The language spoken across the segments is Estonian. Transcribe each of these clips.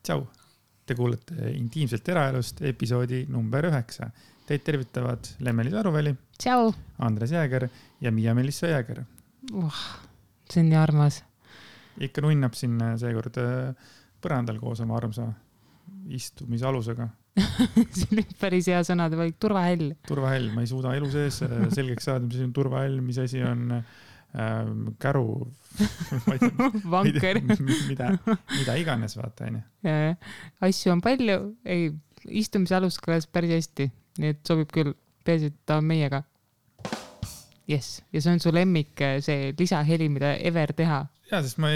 Tšau! Te kuulete Intiimselt eraelust episoodi number 9. Teid tervitavad Lemmeli Taruväli, Tšau! Andres Jääger ja Miia-Melissa Jääger. See on nii armas. Ikka nunnab siin seekord põrandal koos oma armsa istumisalusega. See on päris hea sõnade valik. Turvahäll. Turvahäll. Ma ei suuda elu sees selgeks saada, mis asi on turvahäll, mis asi on käru. Vanker. Mida iganes vaata. Asju on palju. Ei, istumisalus kõlas päris hästi. Nii et sobib küll. Peaasi, et ta on meiega. Yes. Ja see on su lemmik, see lisaheli, mida ever teha. Ja, sest ma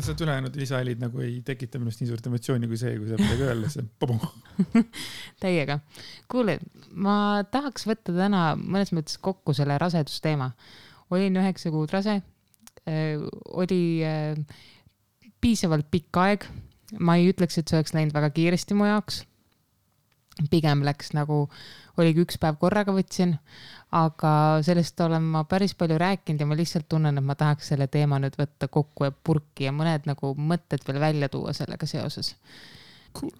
seda ülejäänud lisahelid nagu ei tekita minust nii suurt emotsiooni kui see, kui sa midagi öelda, see Täiega. Kuule, ma tahaks võtta täna mõnes mõttes kokku selle rasedusteema. Olin 9 kuud rase, oli piisavalt pikk aeg. Ma ei ütleks, et see oleks läinud väga kiiresti mu jaoks. Pigem läks nagu, oligi üks päev korraga võtsin, aga sellest olen ma päris palju rääkinud ja ma lihtsalt tunnen, et ma tahaks selle teema nüüd võtta kokku ja purki ja mõned nagu mõtted veel välja tuua sellega seoses. Cool.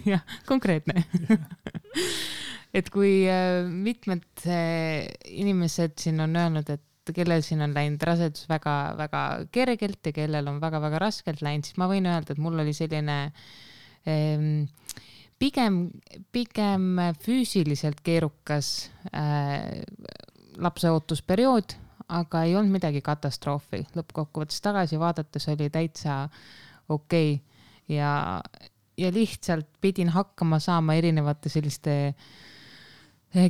Jah, konkreetne. Et kui mitmed inimesed siin on öelnud, et kellel siin on läinud rasedus väga, väga kergelt ja kellel on väga, väga raskelt läinud, siis ma võin öelda, et mul oli selline pigem füüsiliselt keerukas lapseootusperiood, aga ei olnud midagi katastroofi. Lõppkokkuvõttes tagasi vaadates oli täitsa okei. Ja lihtsalt pidin hakkama saama erinevate selliste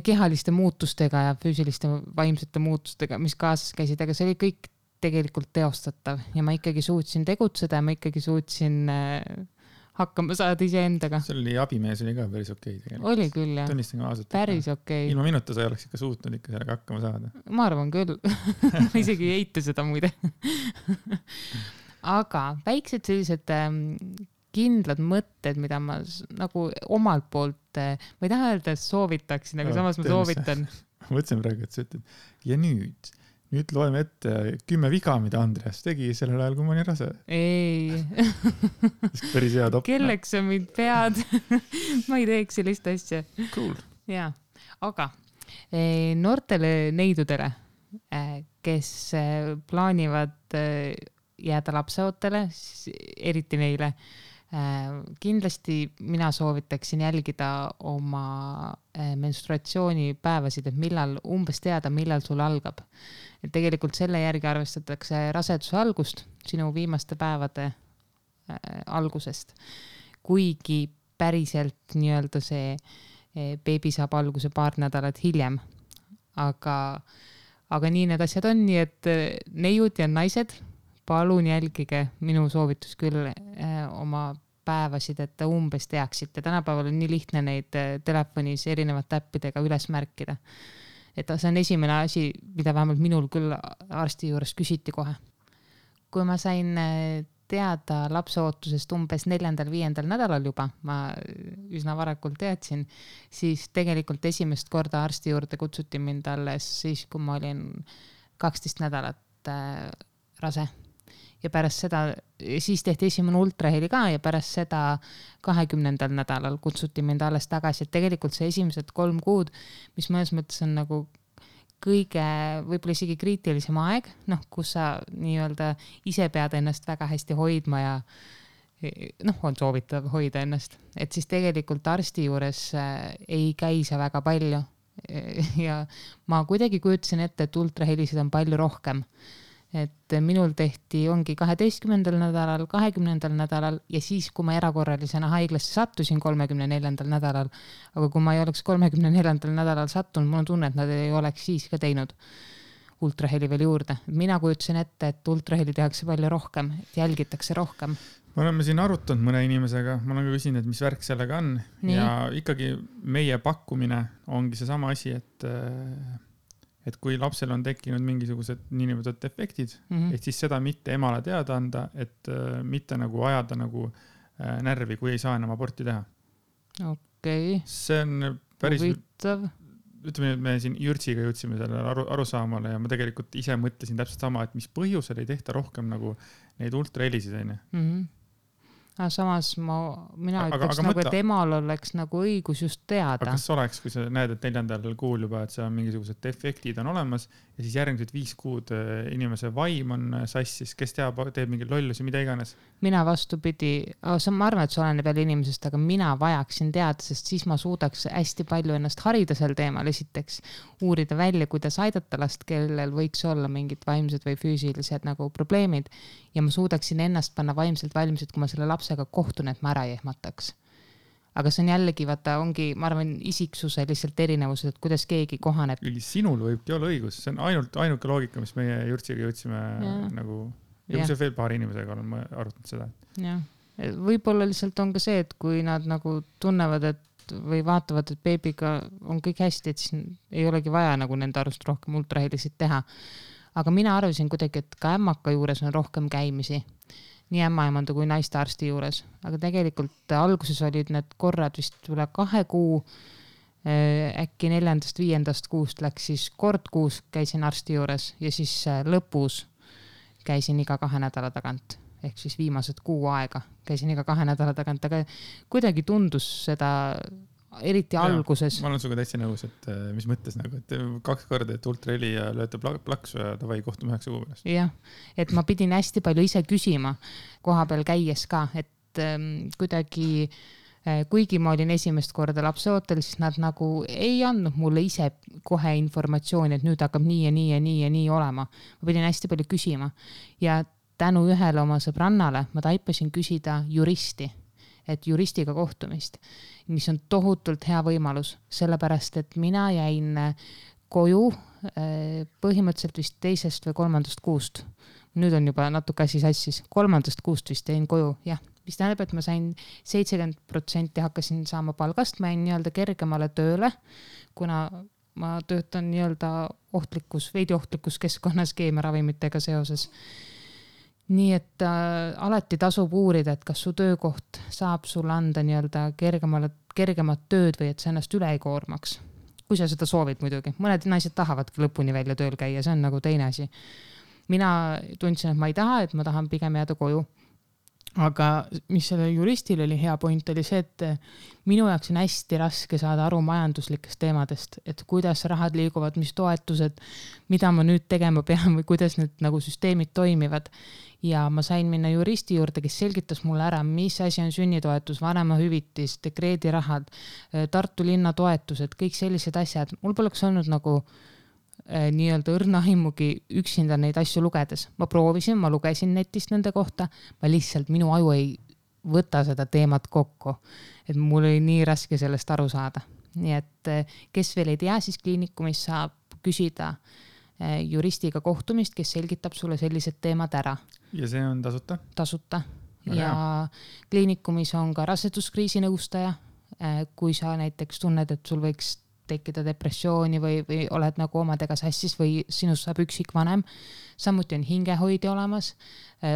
kehaliste muutustega ja füüsiliste vaimsete muutustega, mis kaasas käisid, aga see oli kõik tegelikult teostatav ja ma ikkagi suutsin tegutseda ja ma ikkagi suutsin hakkama saada ise endaga. See oli abimees oli ka päris okei tegelikult. Oli küll, jah. Tunnistan ka ausalt. Päris okei. Ilma minuta sa ei oleks ikka suutnud ikka sellega hakkama saada. Ma arvan küll. Ma isegi ei eita seda muide. Aga väiksed sellised kindlad mõtted, mida ma nagu omalt poolt, ma ei taha öelda, et soovitaksin, aga samas ma soovitan. Ma mõtlesin praegu, et sa ütled, ja nüüd loeme ette 10 viga, mida Andreas tegi sellel ajal, kui ma olin rase. Ei. Päris hea top. Kelleks sa mind pead? Ma ei teeks sellist asja. Cool. Jaa, aga noortele neidudele, kes plaanivad jääda lapseootele, eriti neile, kindlasti mina soovitaksin jälgida oma menstruatsioonipäevasid, et umbes teada, millal sul algab. Et tegelikult selle järgi arvestatakse raseduse algust sinu viimaste päevade algusest. Kuigi päriselt nii-öelda see beebi saab alguse paar nädalat hiljem. Aga nii need asjad on, nii et neiud ja naised, palun jälgige minu soovitus küll oma päevasid, et umbes teaksite. Tänapäeval on nii lihtne neid telefonis erinevate äppidega üles märkida. Et see on esimene asi, mida vähemalt minul küll arsti juures küsiti kohe. Kui ma sain teada lapseootusest umbes 4.-5. nädalal juba, ma üsna varakult teadsin, siis tegelikult esimest korda arsti juurde kutsuti mind alles siis, kui ma olin 12 nädalat rase. Ja pärast seda, siis tehti esimene ultraheli ka ja pärast seda 20. nädalal kutsuti mind alles tagasi. Et tegelikult see esimesed 3 kuud, mis mõnes mõttes on nagu kõige võib-olla isegi kriitilisem aeg, kus sa nii-öelda ise pead ennast väga hästi hoidma ja on soovitav hoida ennast. Et siis tegelikult arsti juures ei käi see väga palju ja ma kuidagi kujutasin ette, et ultrahelisid on palju rohkem. Et minul tehti ongi 12. nädalal, 20. nädalal ja siis, kui ma erakorralisena haiglasse sattusin 34. nädalal, aga kui ma ei oleks 34. nädalal sattunud, mul on tunne, et nad ei oleks siis ka teinud ultraheli veel juurde. Mina kujutasin ette, et ultraheli tehakse palju rohkem, et jälgitakse rohkem. Me oleme siin arutanud mõne inimesega, ma olen ka küsinud, et mis värk sellega on. Nii. Ja ikkagi meie pakkumine ongi see sama asi, et kui lapsel on tekkinud mingisugused niinimetatud efektid, et siis seda mitte emale teada anda, et mitte nagu ajada nagu närvi, kui ei saa enam aborti teha. Okei. See on päris... Huvitav. Ütleme, et me siin Jürtsiga jõudsime sellele arusaamale ja ma tegelikult ise mõtlesin täpselt sama, et mis põhjusel ei tehta rohkem nagu neid ultrahelisid. samas mina ütleks nagu, et emal oleks nagu õigus just teada. Aga kas oleks, kui sa näed, et 4. kuul juba, et seal mingisugused defektid on olemas ja siis järgmised 5 kuud inimese vaim on sassis, kes teeb mingi lollusi, mida iganes? Mina vastupidi, ma arvan, et see oleneb jälle inimesest, aga mina vajaksin teada, sest siis ma suudaks hästi palju ennast harida sel teemal, esiteks uurida välja, kuidas aidata last, kellel võiks olla mingid vaimsed või füüsilised nagu probleemid ja ma suudaksin ennast panna vaimselt valmis, et kui ma selle lapsega kohtun, et ma ära ei ehmataks. Aga see on jällegi, vaata, ongi, ma arvan, isiksuse lihtsalt erinevused, et kuidas keegi kohaneb. Sinul võibki olla õigus, see on ainuke loogika, mis meie Jürtsiga jõudsime nagu, ja kui see veel paari inimesega olen ma arutanud seda. Jah, võib-olla lihtsalt on ka see, et kui nad nagu tunnevad, et või vaatavad, et beebiga on kõik hästi, et siis ei olegi vaja nagu nende arust rohkem ultrahelisid teha. Aga mina arvasin kuidagi, et ka ämmaka juures on rohkem käimisi. Nii ämmaemanda kui naistearsti juures. Aga tegelikult alguses olid need korrad vist üle 2 kuu, äkki 4.–5. kuust läks siis kord kuus käisin arsti juures ja siis lõpus käisin iga 2 nädala tagant. Ehk siis viimased 6 aega käisin iga 2 nädala tagant, aga kuidagi tundus seda eriti alguses. Ma olen suga täitsa nõus, et mis mõttes nagu, et 2 korda, et ultraheli ja lööte plaksu ja tavai kohtume 9 kuu pärast. Jah, et ma pidin hästi palju ise küsima koha peal käies ka, et kuidagi, kuigi ma olin esimest korda lapseootel, siis nad nagu ei andnud mulle ise kohe informatsiooni, et nüüd hakkab nii ja nii ja nii ja nii olema. Ma pidin hästi palju küsima ja tänu ühele oma sõbrannale ma taipasin küsida juristi, et juristiga kohtumist, mis on tohutult hea võimalus, sellepärast, et mina jäin koju põhimõtteliselt vist 2. või 3. kuust. Nüüd on juba natuke asi sassis. 3. kuust vist jäin koju, jah. Mis tähendab, et ma sain 70% hakkasin saama palgast, ma jäin nii-öelda kergemale tööle, kuna ma töötan nii-öelda veidi ohtlikus keskkonnas keemiaravimitega seoses. Nii et alati tasub uurida, et kas su töökoht saab sulle anda nii-öelda kergemat tööd või et sa ennast üle ei koormaks. Kui sa seda soovid muidugi. Mõned naised tahavadki lõpuni välja tööl käia, see on nagu teine asi. Mina tundsin, et ma ei taha, et ma tahan pigem jääda koju. Aga mis selle juristil oli hea point, oli see, et minu jaoks on hästi raske saada aru majanduslikest teemadest, et kuidas rahad liiguvad, mis toetused, mida ma nüüd tegema pean või kuidas need nagu süsteemid toimivad. Ja ma sain minna juristi juurde, kes selgitas mulle ära, mis asi on sünnitoetus, vanemahüvitis, dekreedirahad, Tartu linna toetused, kõik sellised asjad. Mul poleks olnud nagu nii-öelda õrnaimugi üksinda neid asju lugedes. Ma proovisin, ma lugesin netist nende kohta, ma lihtsalt minu aju ei võta seda teemat kokku, et mul oli nii raske sellest aru saada. Nii et kes veel ei tea, siis kliinikumis saab küsida juristiga kohtumist, kes selgitab sulle sellised teemad ära. Ja see on tasuta? Tasuta. Ja kliinikumis on ka raseduskriisi nõustaja, kui sa näiteks tunned, et sul võiks tekkida depressiooni või oled nagu omadega sassis või sinust saab üksikvanem. Samuti on hingehoidja olemas,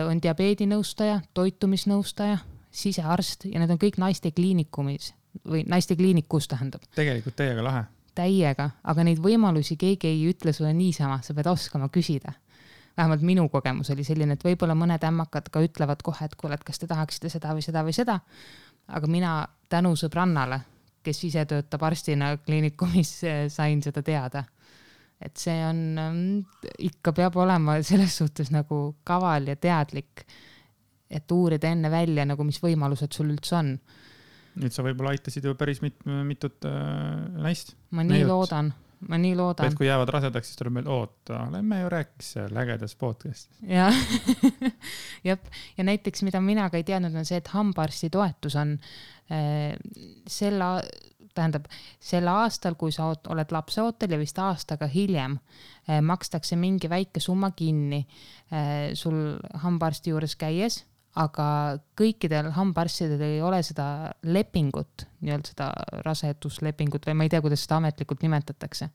on diabeedinõustaja, toitumisnõustaja, sisearst ja need on kõik naiste kliinikumis või naiste kliinikus tähendab. Tegelikult täiega lahe. Täiega, aga neid võimalusi keegi ei ütle sulle niisama, sa pead oskama küsida. Vähemalt minu kogemus oli selline, et võib-olla mõned ämmakad ka ütlevad kohe, et kuule, et kas te tahaksite seda või seda või seda. Aga mina tänu sõbrannale, kes ise töötab arstina kliinikumis, sain seda teada. Et see on, ikka peab olema selles suhtes nagu kaval ja teadlik, et uurida enne välja, nagu mis võimalused sul üldse on. Nüüd sa võib-olla aitasid ju päris mitut naist. Ma nii loodan. Et kui jäävad rasedaks, siis tuleb meil oota, lähme ju rääkis lägedas podcastis. Ja. Ja näiteks, mida mina ka ei teadnud, on see, et hambaarsti toetus on selle aastal, kui sa oled lapseootel ja vist aastaga hiljem, makstakse mingi väike summa kinni sul hambaarsti juures käies, aga kõikidel hambaarstidel ei ole seda lepingut, nii-öelda seda raseduslepingut või ma ei tea, kuidas seda ametlikult nimetatakse.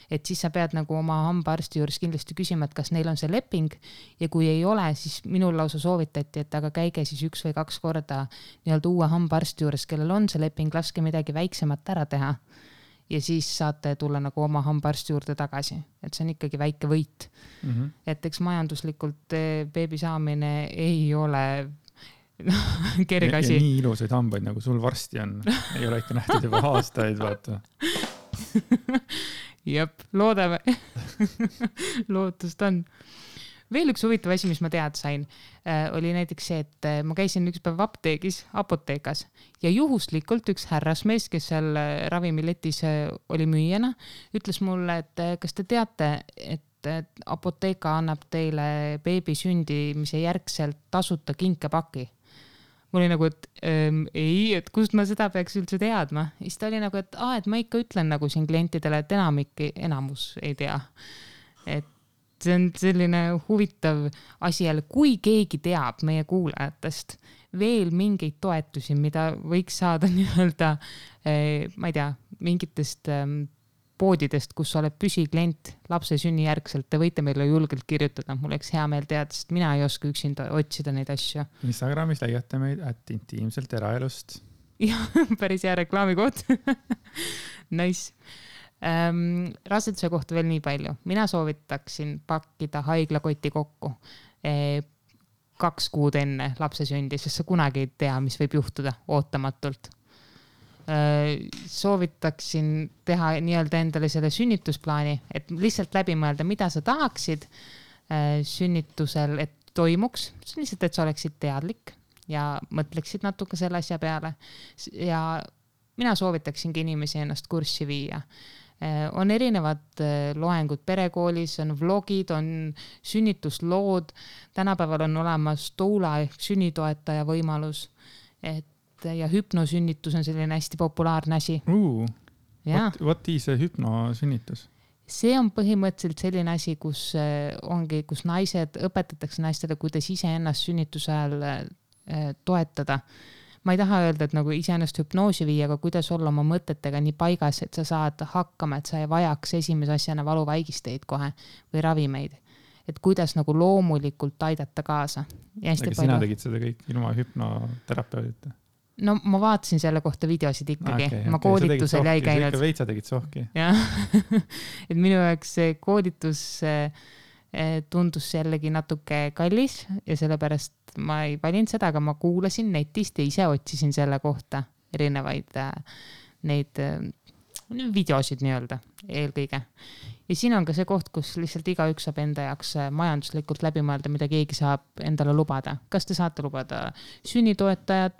Et siis sa pead nagu oma hambaarsti juures kindlasti küsima, et kas neil on see leping ja kui ei ole, siis minul lausa soovitati, et aga käige siis 1 või 2 korda nii-öelda uue hambaarsti juures, kellel on see leping, laske midagi väiksemat ära teha ja siis saate tulla nagu oma hambaarsti juurde tagasi, et see on ikkagi väike võit. Et eks majanduslikult beebi saamine ei ole kergasi. Ja nii ilusaid hambaid, nagu sul varsti on. Ei ole ikka nähtud juba aastaid, vaata. Jep, loodame. Lootust on. Veel üks huvitav asi, mis ma teada sain, oli näiteks see, et ma käisin üks päev apoteekas ja juhuslikult üks härrasmees, kes seal ravimiletis oli müüjana, ütles mulle, et kas te teate, et apoteeka annab teile beebi sündimise järgselt tasuta kinkepaki. Mul oli nagu, et ei, et kust ma seda peaks üldse teadma. Siis ta oli nagu, et ma ikka ütlen nagu siin klientidele, et enamus ei tea. Et see on selline huvitav asi jälle, kui keegi teab meie kuulajatest veel mingeid toetusi, mida võiks saada nii-öelda, ma ei tea, mingitest poodidest, kus oled püsiklient lapse sünnijärgselt, te võite meile julgelt kirjutada. Mul oleks hea meel teada, sest mina ei oska üksinda otsida neid asju. Instagramis leiate meid @intiimselt eraelust. Jah, päris hea reklaamikoht. Nice. Raseduse kohta veel nii palju. Mina soovitaksin pakkida haiglakoti kokku 2 kuud enne lapse sündi, sest sa kunagi ei tea, mis võib juhtuda ootamatult. Soovitaksin teha nii-öelda endale selle sünnitusplaani, et lihtsalt läbi mõelda, mida sa tahaksid sünnitusel, et toimuks. Lihtsalt, et sa oleksid teadlik ja mõtleksid natuke selle asja peale. Ja mina soovitaksingi inimesi ennast kurssi viia. On erinevad loengud perekoolis, on vlogid, on sünnituslood. Tänapäeval on olemas doula ehk sünnitoetaja võimalus, ja hüpnosünnitus on selline hästi populaarne asi. What is a hüpnosünnitus? See on põhimõtteliselt selline asi, kus naised õpetatakse naistele, kuidas ise ennast sünnituse ajal toetada. Ma ei taha öelda, et nagu iseennast hüpnoosi viia, aga kuidas olla oma mõtetega nii paigas, et sa saad hakkama, et sa ei vajaks esimese asjana valuvaigisteid kohe või ravimeid. Et kuidas nagu loomulikult aidata kaasa. Aga sina tegid seda kõik ilma hüpnoterapeudita? No ma vaatasin selle kohta videosid ikkagi. Ma koolitusel jäi käinud. Sa ikka veitsa tegid sohki. Jah. Et minu jaoks see koolitus tundus jällegi natuke kallis ja sellepärast ma ei valinud seda, aga ma kuulasin netist ja ise otsisin selle kohta erinevaid neid videosid nii-öelda eelkõige. Ja siin on ka see koht, kus lihtsalt igaüks saab enda jaoks majanduslikult läbi mõelda, mida keegi saab endale lubada. Kas te saate lubada sünnitoetajad,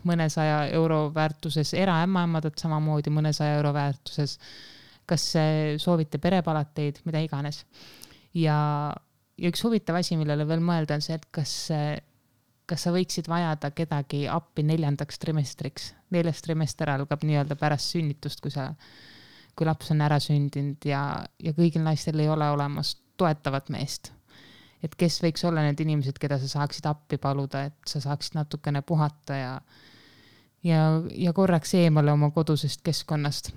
mõnesaja euro väärtuses, eraämmaemadat samamoodi mõnesaja euro väärtuses, kas soovite perepalateid, mida iganes. Ja üks huvitav asi, millele veel mõelda on see, et kas sa võiksid vajada kedagi appi 4. trimestriks. 4. trimester algab nii-öelda pärast sünnitust, kui laps on ära sündinud ja kõigil naistel ei ole olemas toetavat meest. Et kes võiks olla need inimesed, keda sa saaksid appi paluda, et sa saaksid natukene puhata ja korraks eemale oma kodusest keskkonnast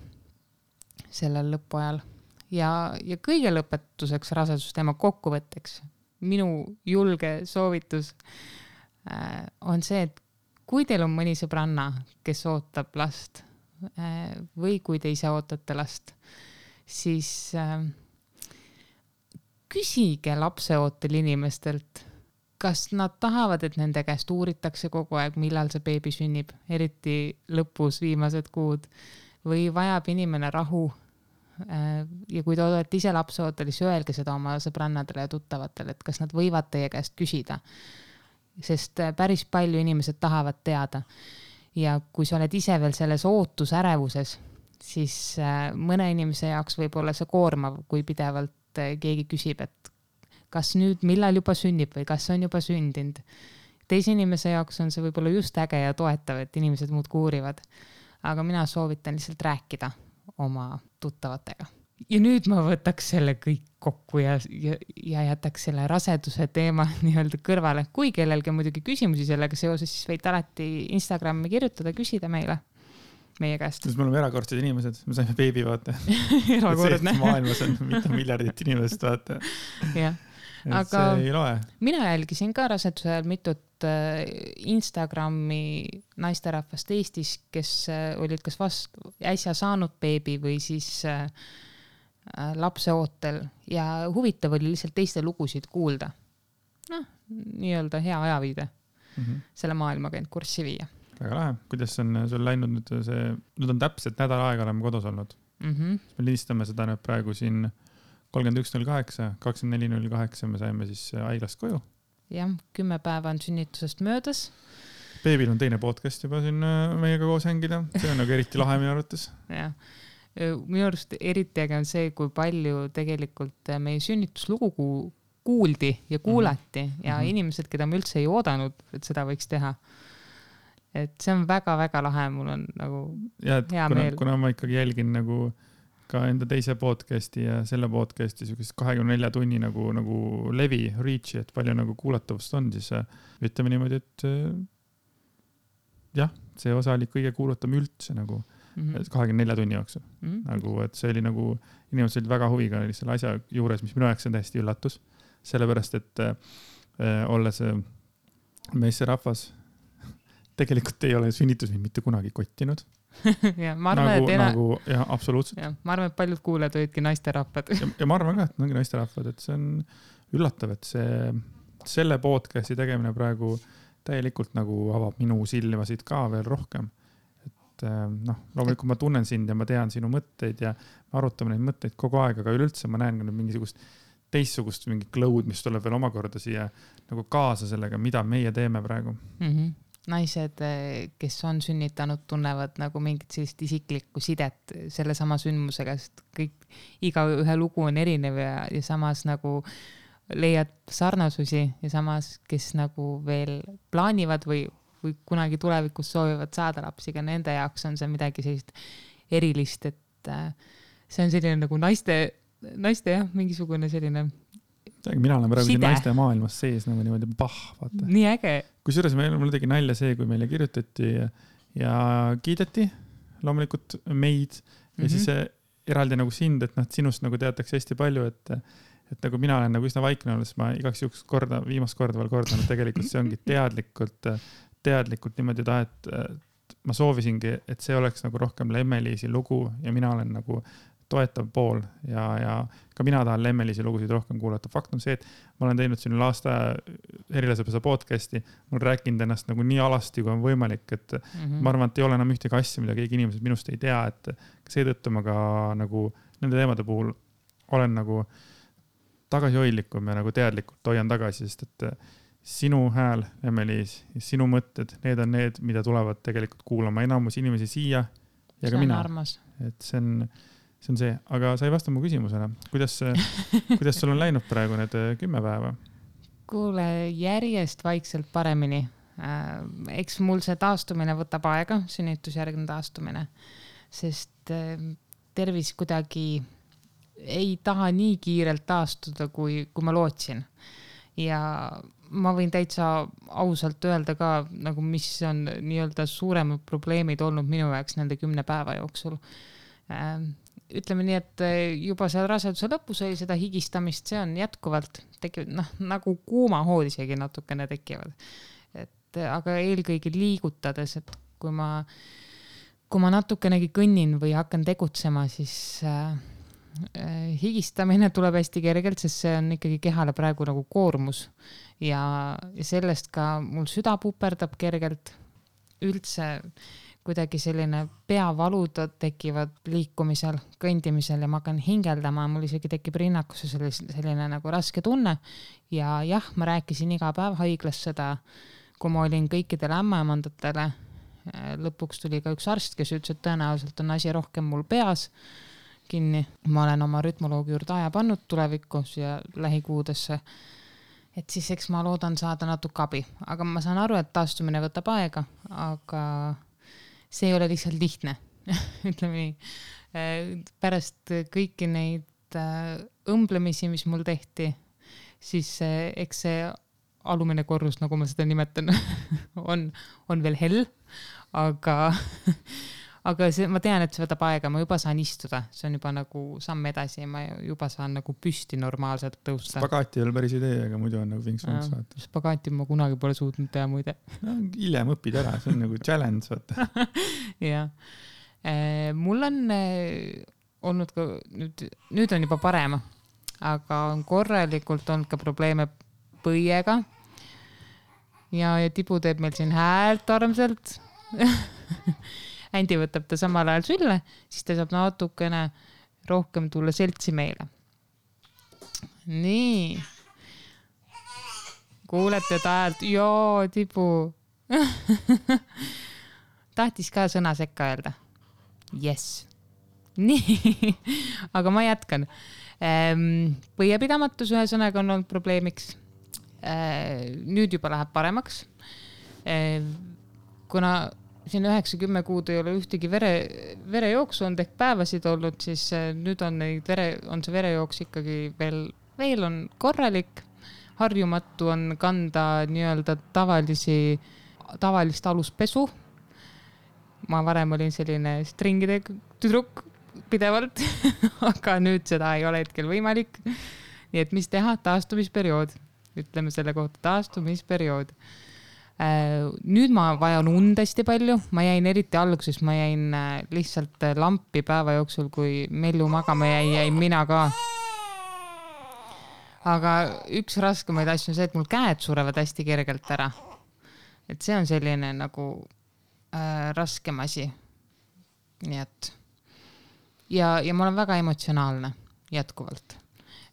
sellel lõpuajal. Ja kõige lõpetuseks rasedusteema kokkuvõtteks minu julge soovitus on see, et kui teil on mõni sõbranna, kes ootab last või kui te ise ootate last, siis küsige lapseootel inimestelt, kas nad tahavad, et nende käest uuritakse kogu aeg, millal see beebi sünnib, eriti lõpus viimased kuud, või vajab inimene rahu. Ja kui te olete ise lapseootel, siis öelge seda oma sõbrannadele ja tuttavatele, et kas nad võivad teie käest küsida. Sest päris palju inimesed tahavad teada. Ja kui sa oled ise veel selles ootusärevuses, siis mõne inimese jaoks võib olla see koormav, kui pidevalt keegi küsib, et kas nüüd millal juba sünnib või kas on juba sündinud. Teise inimese jaoks on see võib-olla just äge ja toetav, et inimesed muud kuurivad. Aga mina soovitan lihtsalt rääkida oma tuttavatega. Ja nüüd ma võtaks selle kõik kokku ja jätaks selle raseduse teema nii-öelda kõrvale. Kui kellelgi muidugi küsimusi sellega seoses, siis võite alati Instagrami kirjutada, küsida meie käest. Me oleme erakordsed inimesed, me saime beebi vaata. Erakordne. Maailmas on mitu miljardit inimest vaata. Jah. Aga see ei loe. Mina jälgisin ka raseduse ajal mitut Instagrami naisterahvast Eestis, kes olid kas äsja saanud beebi või siis lapseootel ja huvitav oli lihtsalt teiste lugusid kuulda. Nii-öelda hea ajaviide. selle maailmaga end kurssi viia. Väga lahe. Kuidas on sul läinud nüüd on täpselt nädal aega oleme kodus olnud. Me listame seda nüüd praegu siin 31.08, 24.08 me saime siis haiglast koju. Jah, 10 päeva on sünnitusest möödas. Beebil on teine podcast juba siin meiega koos hängida. See on nagu eriti lahe minu arvates. Jah. Minu arust eriti äge on see, kui palju tegelikult meie sünnituslugu kuuldi ja kuulati ja inimesed, keda me üldse ei oodanud, et seda võiks teha. Et see on väga-väga lahe, mul on nagu hea meel. Kuna ma ikkagi jälgin nagu ka enda teise podcasti ja selle podcasti 24 tunni nagu levi, reach'i, et palju nagu kuulatavust on, siis ütleme niimoodi, et jah, see osa oli kõige kuulatam üldse nagu 24 tunni jooksul. Nagu, et see oli nagu, inimesed olid väga huviga selle asja juures, mis minu jaoks on täiesti üllatus. Sellepärast, et olles meesterahvas, tegelikult ei ole sünnitus mind mitte kunagi kottinud. Ja, ma arvan, jah, absoluutselt. Ja, ma arvan, et paljud kuuled olidki naisterahvad. Ja ma arvan ka, et ongi naisterahvad, et see on üllatav, et selle podcasti tegemine praegu täielikult nagu avab minu silmasid ka veel rohkem. Loomulikult ma tunnen sind ja ma tean sinu mõtteid ja me arutame neid mõtteid kogu aeg, aga üleüldse ma näen mingisugust teistsugust mingi cloud, mis tuleb veel omakorda siia nagu kaasa sellega, mida meie teeme praegu. Naised, kes on sünnitanud, tunnevad nagu mingit sellist isiklikku sidet selle sama sündmusega, sest iga ühe lugu on erinev ja samas nagu leiad sarnasusi ja samas, kes nagu veel plaanivad või kunagi tulevikus soovivad saada lapsiga, nende jaoks on see midagi sellist erilist, et see on selline nagu naiste jah, mingisugune selline mina olen praegu naiste maailmas sees nagu niimoodi vaata. Nii äge. Kusjuures mul tegi nalja see, kui meile kirjutati ja kiideti loomulikult meid ja siis eraldi nagu sind, et sinust nagu teatakse hästi palju, et nagu mina olen nagu üsna vaikne olles, ma igaks juhuks viimast korda veel kordanud, tegelikult see ongi teadlikult niimoodi et ma soovisingi, et see oleks nagu rohkem Lemmeliisi lugu ja mina olen nagu toetav pool ja ka mina tahan Lemmeliisi lugusid rohkem kuulata. Fakt on see, et ma olen teinud siin aasta Erilasepesa podcasti, ma olen rääkinud ennast nagu nii alasti, kui on võimalik, et ma arvan, et ei ole enam ühtegi asja, mida keegi inimesed minust ei tea, et seetõttu ma ka nagu nende teemade puhul olen nagu tagasihoidlikum ja nagu teadlikult hoian tagasi, sest et sinu hääl, Lemmeliis, ja sinu mõtted, need on need, mida tulevad tegelikult kuulama enamus inimesi siia ja ka mina. Et see on see, aga sa ei vasta mu küsimusele. Kuidas sul on läinud praegu need 10 päeva? Kuule, järjest vaikselt paremini. Eks mul see taastumine võtab aega, sünnitusjärgne taastumine, sest tervis kuidagi ei taha nii kiirelt taastuda, kui ma lootsin. Ja ma võin täitsa ausalt öelda ka, nagu mis on nii-öelda suuremad probleemid olnud minu jaoks nende 10 päeva jooksul. Ütleme nii, et juba seal raseduse lõpus oli seda higistamist, see on jätkuvalt tekivad, nagu kuumahood isegi natukene tekivad. Aga eelkõige liigutades, et kui ma natukenegi kõnnin või hakkan tegutsema, siis higistamine tuleb hästi kergelt, sest see on ikkagi kehale praegu nagu koormus ja sellest ka mul süda puperdab kergelt, üldse kuidagi selline peavalud tekivad liikumisel, kõndimisel ja ma hakkan hingeldama, mul isegi tekib rinnakus selline nagu raske tunne ja jah, ma rääkisin iga päev haiglas seda, kui ma olin kõikidele ämmaemandatele, lõpuks tuli ka üks arst, kes ütles, et tõenäoliselt on asi rohkem mul peas kinni. Ma olen oma rütmoloogi juurde aja pannud tulevikus ja lähikuudesse. Et siis eks ma loodan saada natuke abi. Aga ma saan aru, et taastumine võtab aega, aga see ei ole lihtsalt lihtne. Ütleme nii. Pärast kõiki neid õmblemisi, mis mul tehti, siis eks see alumine korrus, nagu ma seda nimetan, on veel hell, aga ma tean, et see võtab aega, ma juba saan istuda, see on juba nagu samm edasi ja ma juba saan nagu püsti normaalselt tõusta. Spagaati ei ole päris idee, aga muidu on nagu vinks-vinks vaata. Spagaati ma kunagi pole suutnud teha muide. Hiljem õpid ära, see on nagu challenge vaata. Jah. Mul on olnud ka, nüüd on juba parem, aga on korralikult olnud ka probleeme põiega. ja Tibu teeb meil siin häält armsalt. Andi võtab ta samal ajal sülle, siis ta saab natukene rohkem tulla seltsi meile. Nii. Kuulete ta häält? Joo, Tibu. Tahtis ka sõna sekka öelda. Yes. Nii, aga ma jätkan. Põiepidamatus ühesõnaga on olnud probleemiks. Nüüd juba läheb paremaks. Kuna siin 9-10 kuud ei ole ühtegi verejooksu on ehk päevasid olnud, siis nüüd on see verejooks ikkagi veel on korralik. Harjumatu on kanda nii-öelda tavalist aluspesu. Ma varem olin selline stringide tüdruk pidevalt, aga nüüd seda ei ole hetkel võimalik. Nii et mis teha? Taastumisperiood. Ütleme selle kohta taastumisperiood. Nüüd ma vajan und hästi palju. Ma jäin eriti alguses, ma jäin lihtsalt lampi päeva jooksul, kui Mellu magama jäin mina ka. Aga üks raskemaid asju on see, et mul käed surevad hästi kergelt ära. Et see on selline nagu raskem asi. Nii et ja ma olen väga emotsionaalne jätkuvalt.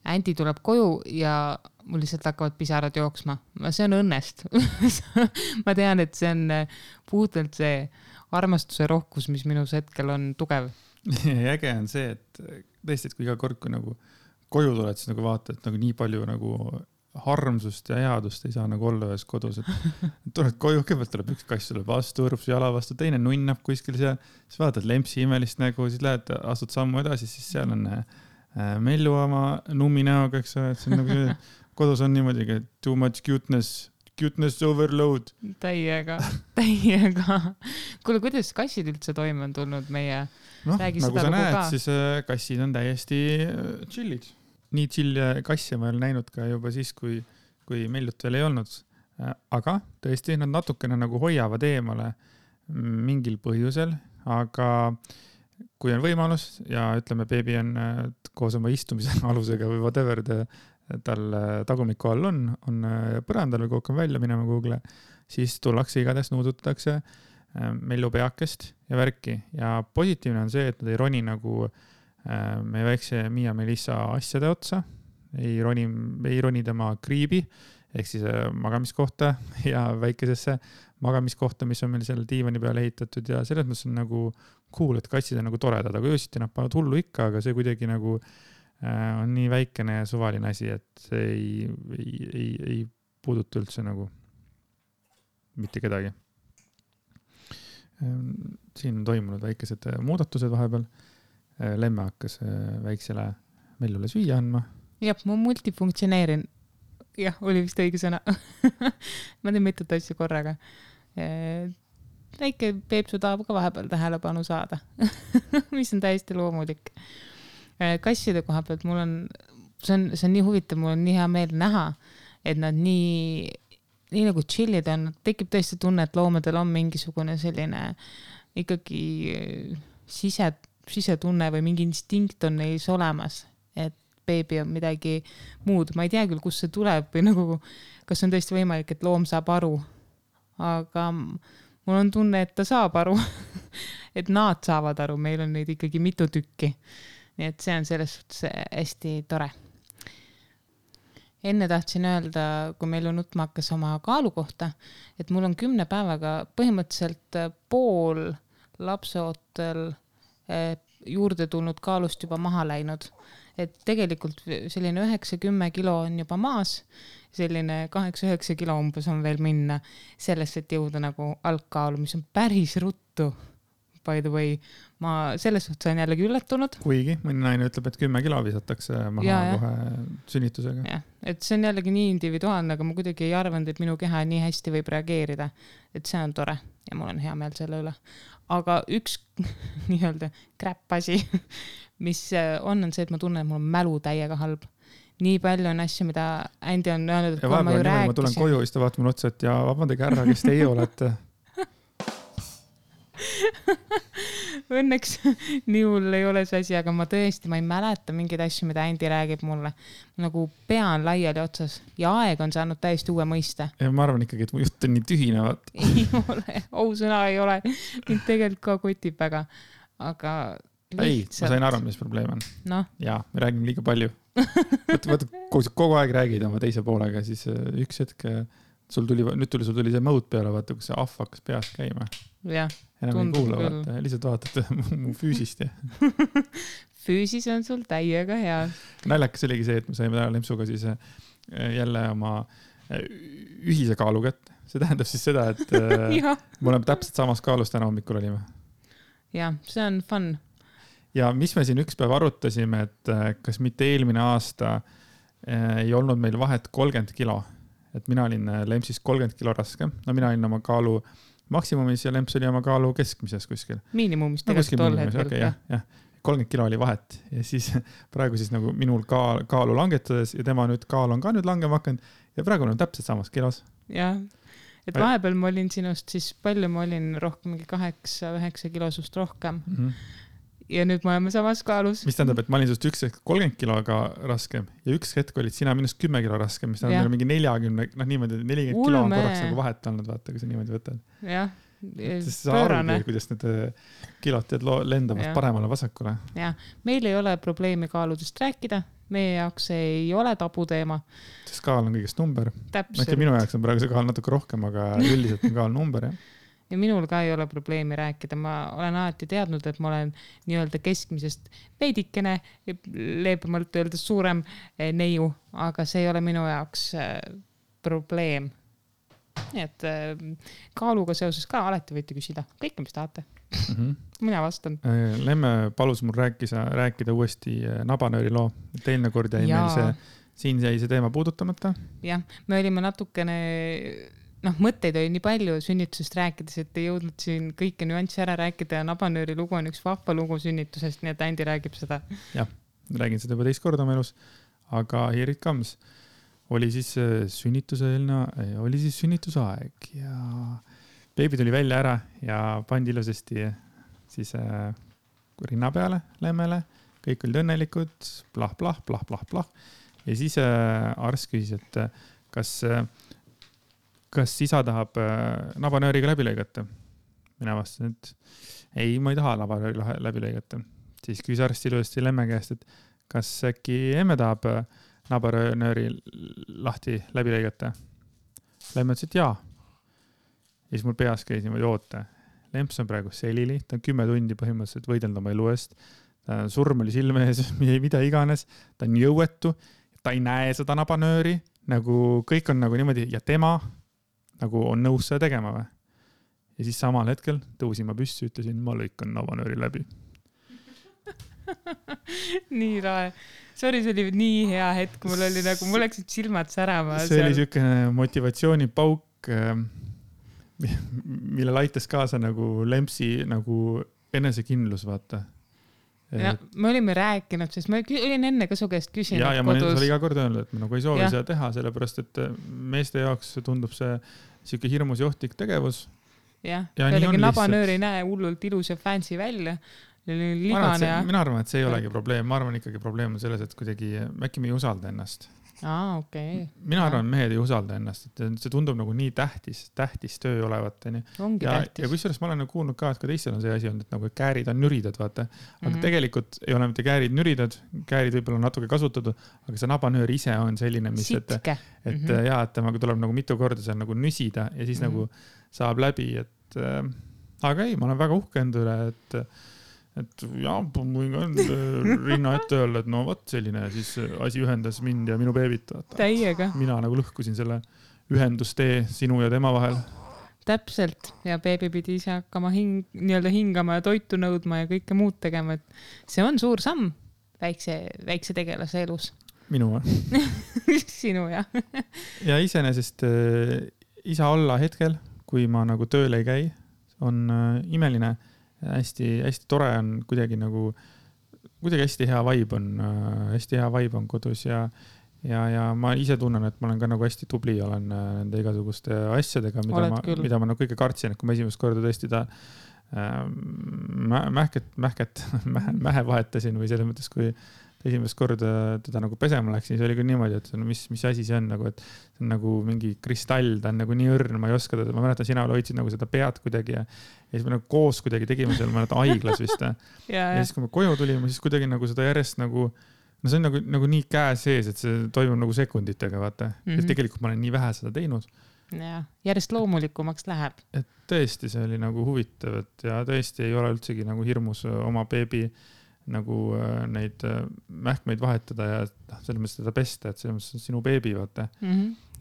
Andi tuleb koju ja mul lihtsalt hakkavad pisarad jooksma. See on õnnest. Ma tean, et see on puhtalt see armastuse rohkus, mis minus hetkel on tugev. Ja äge on see, et tõesti, et kui iga kord, kui nagu koju tuled, siis nagu vaata, et nagu nii palju nagu harmsust ja headust ei saa nagu olla ühes kodus. Et tuled koju, kõigepealt tuleb üks kass sulle vastu, õrub su jala vastu, teine nunnab kuskil seal, siis vaatad lempsi imelist nägu, siis lähed, astud sammu edasi, siis seal on Mellu oma nummi näoga, eks ole, et see on nagu kodus on niimoodi, too much cuteness overload. Täiega. Kuule, kuidas kassid üldse toime on tulnud meie räägi nagu seda sa näed, ka? siis kassid on täiesti chillid. Nii chill kasse ma olen näinud ka juba siis, kui Mellut veel ei olnud. Aga tõesti, nad natukene nagu hoiavad eemale mingil põhjusel, aga kui on võimalus ja ütleme, beebi on koos oma istumise alusega või whatever tal tagumiku all on põrandal või kogu välja minema Google, siis tullakse igatahes nuudutatakse Mellu peakest ja värki. Ja positiivne on see, et nad ei roni nagu meie väikse Miia Melissa asjade otsa, ei roni tema kriibi, ehk siis magamiskohta ja väikesesse magamiskohta, mis on meil seal diivani peale ehitatud ja selles mõttes on nagu cool, et kassid on nagu toredad, aga öösiti nad panevad hullu ikka, aga see kuidagi nagu on nii väikene ja suvaline asi, et see ei puuduta üldse nagu mitte kedagi. Siin on toimunud väikesed muudatused vahepeal. Lemme hakkas väiksele Mellule süüa andma. Jah, ma multifunktsioneerin. Jah, oli vist õige sõna. Ma teen mitut asju korraga. Väike Peepsu tahab ka vahepeal tähelepanu saada, mis on täiesti loomulik. Kasside koha pealt see on nii huvitav, mul on nii hea meel näha, et nad nii nagu chillid on, tekib tõesti tunne, et loomadel on mingisugune selline ikkagi sisetunne või mingi instinkt on neis olemas, et beebi on midagi muud. Ma ei tea küll, kus see tuleb või nagu, kas on tõesti võimalik, et loom saab aru, aga mul on tunne, et ta saab aru, et nad saavad aru, meil on neid ikkagi mitu tükki. Nii et see on selles suhtes hästi tore. Enne tahtsin öelda, kui meil on nutma hakkas oma kaalu kohta, et mul on 10 päevaga põhimõtteliselt pool lapseootel juurde tulnud kaalust juba maha läinud. Et tegelikult selline 9-10 kilo on juba maas, selline 8-9 kilo umbes on veel minna sellest, et jõuda nagu algkaalu, mis on päris ruttu. By the way, ma selles suhtes olen jällegi üllatunud. Kuigi mõni naine ütleb, et 10 kilo visatakse maha kohe sünnitusega. Ja, et see on jällegi nii individuaalne, aga ma kuidagi ei arvanud, et minu keha nii hästi võib reageerida. Et see on tore ja mul on hea meel selle üle. Aga üks nii-öelda kräppasi, mis on see, et ma tunnen, et mul on mälu täiega halb. Nii palju on asju, mida Andi on öelnud, et kui ma ju rääkisin. Ma tulen koju, siis ta vaatab mulle otsa, et ja vabandage ära, kes teie olete. Õnneks nii hull ei ole see asi, aga ma ei mäleta mingeid asju, mida Andy räägib mulle. Nagu pea on laiali otsas ja aeg on saanud täiesti uue mõiste. Ja ma arvan ikkagi, et mu jutt on nii tühinevat. Ei ole, ausõna ei ole. Mind tegelikult ka kotib väga, aga lihtsalt... Ei, ma sain aru, mis probleem on. No. Jaa, me räägime liiga palju. Vaata, kogu aeg räägid oma teise poolega, siis üks hetk sul tuli see mõõt peale, vaata, kus see ahv hakkas peas käima. Jah, enam ei kuula, vaata, lihtsalt vaatate mu füüsist. Ja. Füüsis on sul täiega hea. Naljakas oligi see, et me saime täna Lempsuga siis jälle oma ühise kaalu kätte. See tähendab siis seda, et me oleme täpselt samas kaalus täna hommikul olime. Jah, see on fun. Ja mis me siin üks päev arutasime, et kas mitte eelmine aasta ei olnud meil vahet 30 kilo. Et mina olin Lempsis 30 kilo raske. No mina olin oma kaalu maksimumis ja Lemps oli oma kaalu keskmises kuskil. Miinimumis tegelikult tol hetkel. Okay, jah. 30 kilo oli vahet ja siis praegu siis nagu minul kaalu langetades ja tema nüüd kaal on ka nüüd langema hakanud ja praegu on täpselt samas kilos. Jah, et vahepeal ma olin sinust siis palju ma olin rohkem, mingi 8-9 kilosust rohkem. Ja nüüd me oleme samas kaalus. Mis tähendab, et ma olin sinust üks hetk 30 kiloga raskem ja üks hetk olid sina minust 10 kilo raskem, mis tähendab mingi 40, niimoodi 40 kilo on korraks nagu vahet olnud, vaata, kui sa niimoodi võtad. Jah, pöörane. Kuidas need kilod teed lendavad paremale vasakule. Jah, meil ei ole probleemi kaaludest rääkida, meie jaoks ei ole tabuteema. Sest kaal on kõigest number. Täpselt. Minu jaoks on praegu see kaal natuke rohkem, aga üldiselt on kaal number, jah. Ja minul ka ei ole probleemi rääkida. Ma olen alati teadnud, et ma olen nii-öelda keskmisest veidikene, leebemalt öelda suurem neiu, aga see ei ole minu jaoks probleem. Nii et kaaluga seoses ka alati võite küsida kõike, mis tahate. Mina vastan. Lemme palus mul rääkida uuesti nabanööri loo. Teine kord jäi meil siin jäi see teema puudutamata. Jah, me olime natukene... mõtteid oli nii palju sünnitusest rääkides, et ei jõudnud siin kõike nüanssi ära rääkida ja nabanööri lugu on üks vahva lugu sünnitusest, nii et Andy räägib seda. Jah, räägin seda juba teist korda oma elus, aga here it comes. Oli siis sünnitusaeg ja beebi tuli välja ära ja pandi ilusasti siis rinna peale Lemmele, kõik olid õnnelikud, plah. Ja siis arst küsis, et kas isa tahab nabanööriga läbi lõigata? Mina vastasin, et ei, ma ei taha nabanööri läbi lõigata. Siis küsis arst ilusti Lemme käest, et kas äkki emme tahab nabanööri lahti läbi lõigata? Lemme ütles, et jaa. Ja siis mul peas käis niimoodi oota. Lemps on praegu selili, ta on 10 tundi põhimõtteliselt võidelnud oma elu eest. Surm oli silme ees, mida iganes. Ta on jõuetu, ta ei näe seda nabanööri, nagu kõik on nagu niimoodi ja tema nagu on nõus seda tegema või. Ja siis samal hetkel tõusin ma püssi, ütlesin, ma lõikan nabanööri läbi. Nii rae. Sorry, see oli nii hea hetk. Mul läksid silmad särama. See oli selline motivatsioonipauk, mille laitas kaasa nagu Lempsi nagu enesekindlus, vaata. Ja, me olime rääkinud, sest ma olin enne ka su käest küsinud ja kodus. Ja ma olin iga kord öelnud, et ma nagu ei soovi seda teha, sellepärast, et meeste jaoks tundub see siuke hirmus johtlik tegevus. Ja oligi nabanöör ei näe hullult ilus ja fancy välja. Mina arvan, et see ei olegi probleem. Ma arvan ikkagi probleem on selles, et kuidagi äkki me ei usalda ennast. Okay. Mina arvan, mehed ei usalda ennast, et see tundub nagu nii tähtis töö olevat. Ongi tähtis. Ja kusjuures ma olen kuulnud ka, et ka teistel on see asi olnud, et nagu käärid on nüridad, vaata. Aga tegelikult ei ole mitte käärid nüridad, käärid võib-olla on natuke kasutatud, aga see nabanöör ise on selline, mis, et temaga tuleb nagu mitu korda seal nagu nüsida ja siis nagu saab läbi, et aga ei, ma olen väga uhkend üle, et jah, võin ka rinna ette öelda, et no võt selline siis asi ühendas mind ja minu beebit. Täiega. Mina nagu lõhkusin selle ühendustee sinu ja tema vahel. Täpselt. Ja beebi pidi ise hakkama nii-öelda hingama ja toitu nõudma ja kõike muud tegema. Et see on suur samm väikse tegelase elus. Minu või? Sinu, jah. Ja iseenesest isa olla hetkel, kui ma nagu tööle ei käi, on imeline. Hästi tore on kuidagi hästi hea vibe on kodus ja ma ise tunnen, et ma olen ka nagu hästi tubli, olen nende igasuguste asjadega, mida ma nagu kõige kartsin, et kui ma esimest korda tõesti mähe vahetasin või selles mõttes, kui esimest korda teda nagu pesema läksin, siis oli küll niimoodi, et no, mis asi see on nagu, et see on nagu mingi kristall, ta on nagu nii õrn, ma ei oska teda, ma mäletan, sina hoidsid nagu seda pead kuidagi ja siis me nagu koos kuidagi tegime seal, ma mäletan, haiglas vist. ja siis, kui me koju tulime, siis kuidagi nagu seda järjest nagu, no see on nagu nii käe sees, et see toimub nagu sekunditega, vaata. Ja tegelikult ma olen nii vähe seda teinud. Ja, järjest loomulikumaks läheb. Et tõesti, see oli nagu huvitav, et ja tõesti ei ole üldsegi nagu hirmus oma beebi nagu neid mähkmeid vahetada ja selles mõttes teda pesta, et selles mõttes sinu beebi, vaata.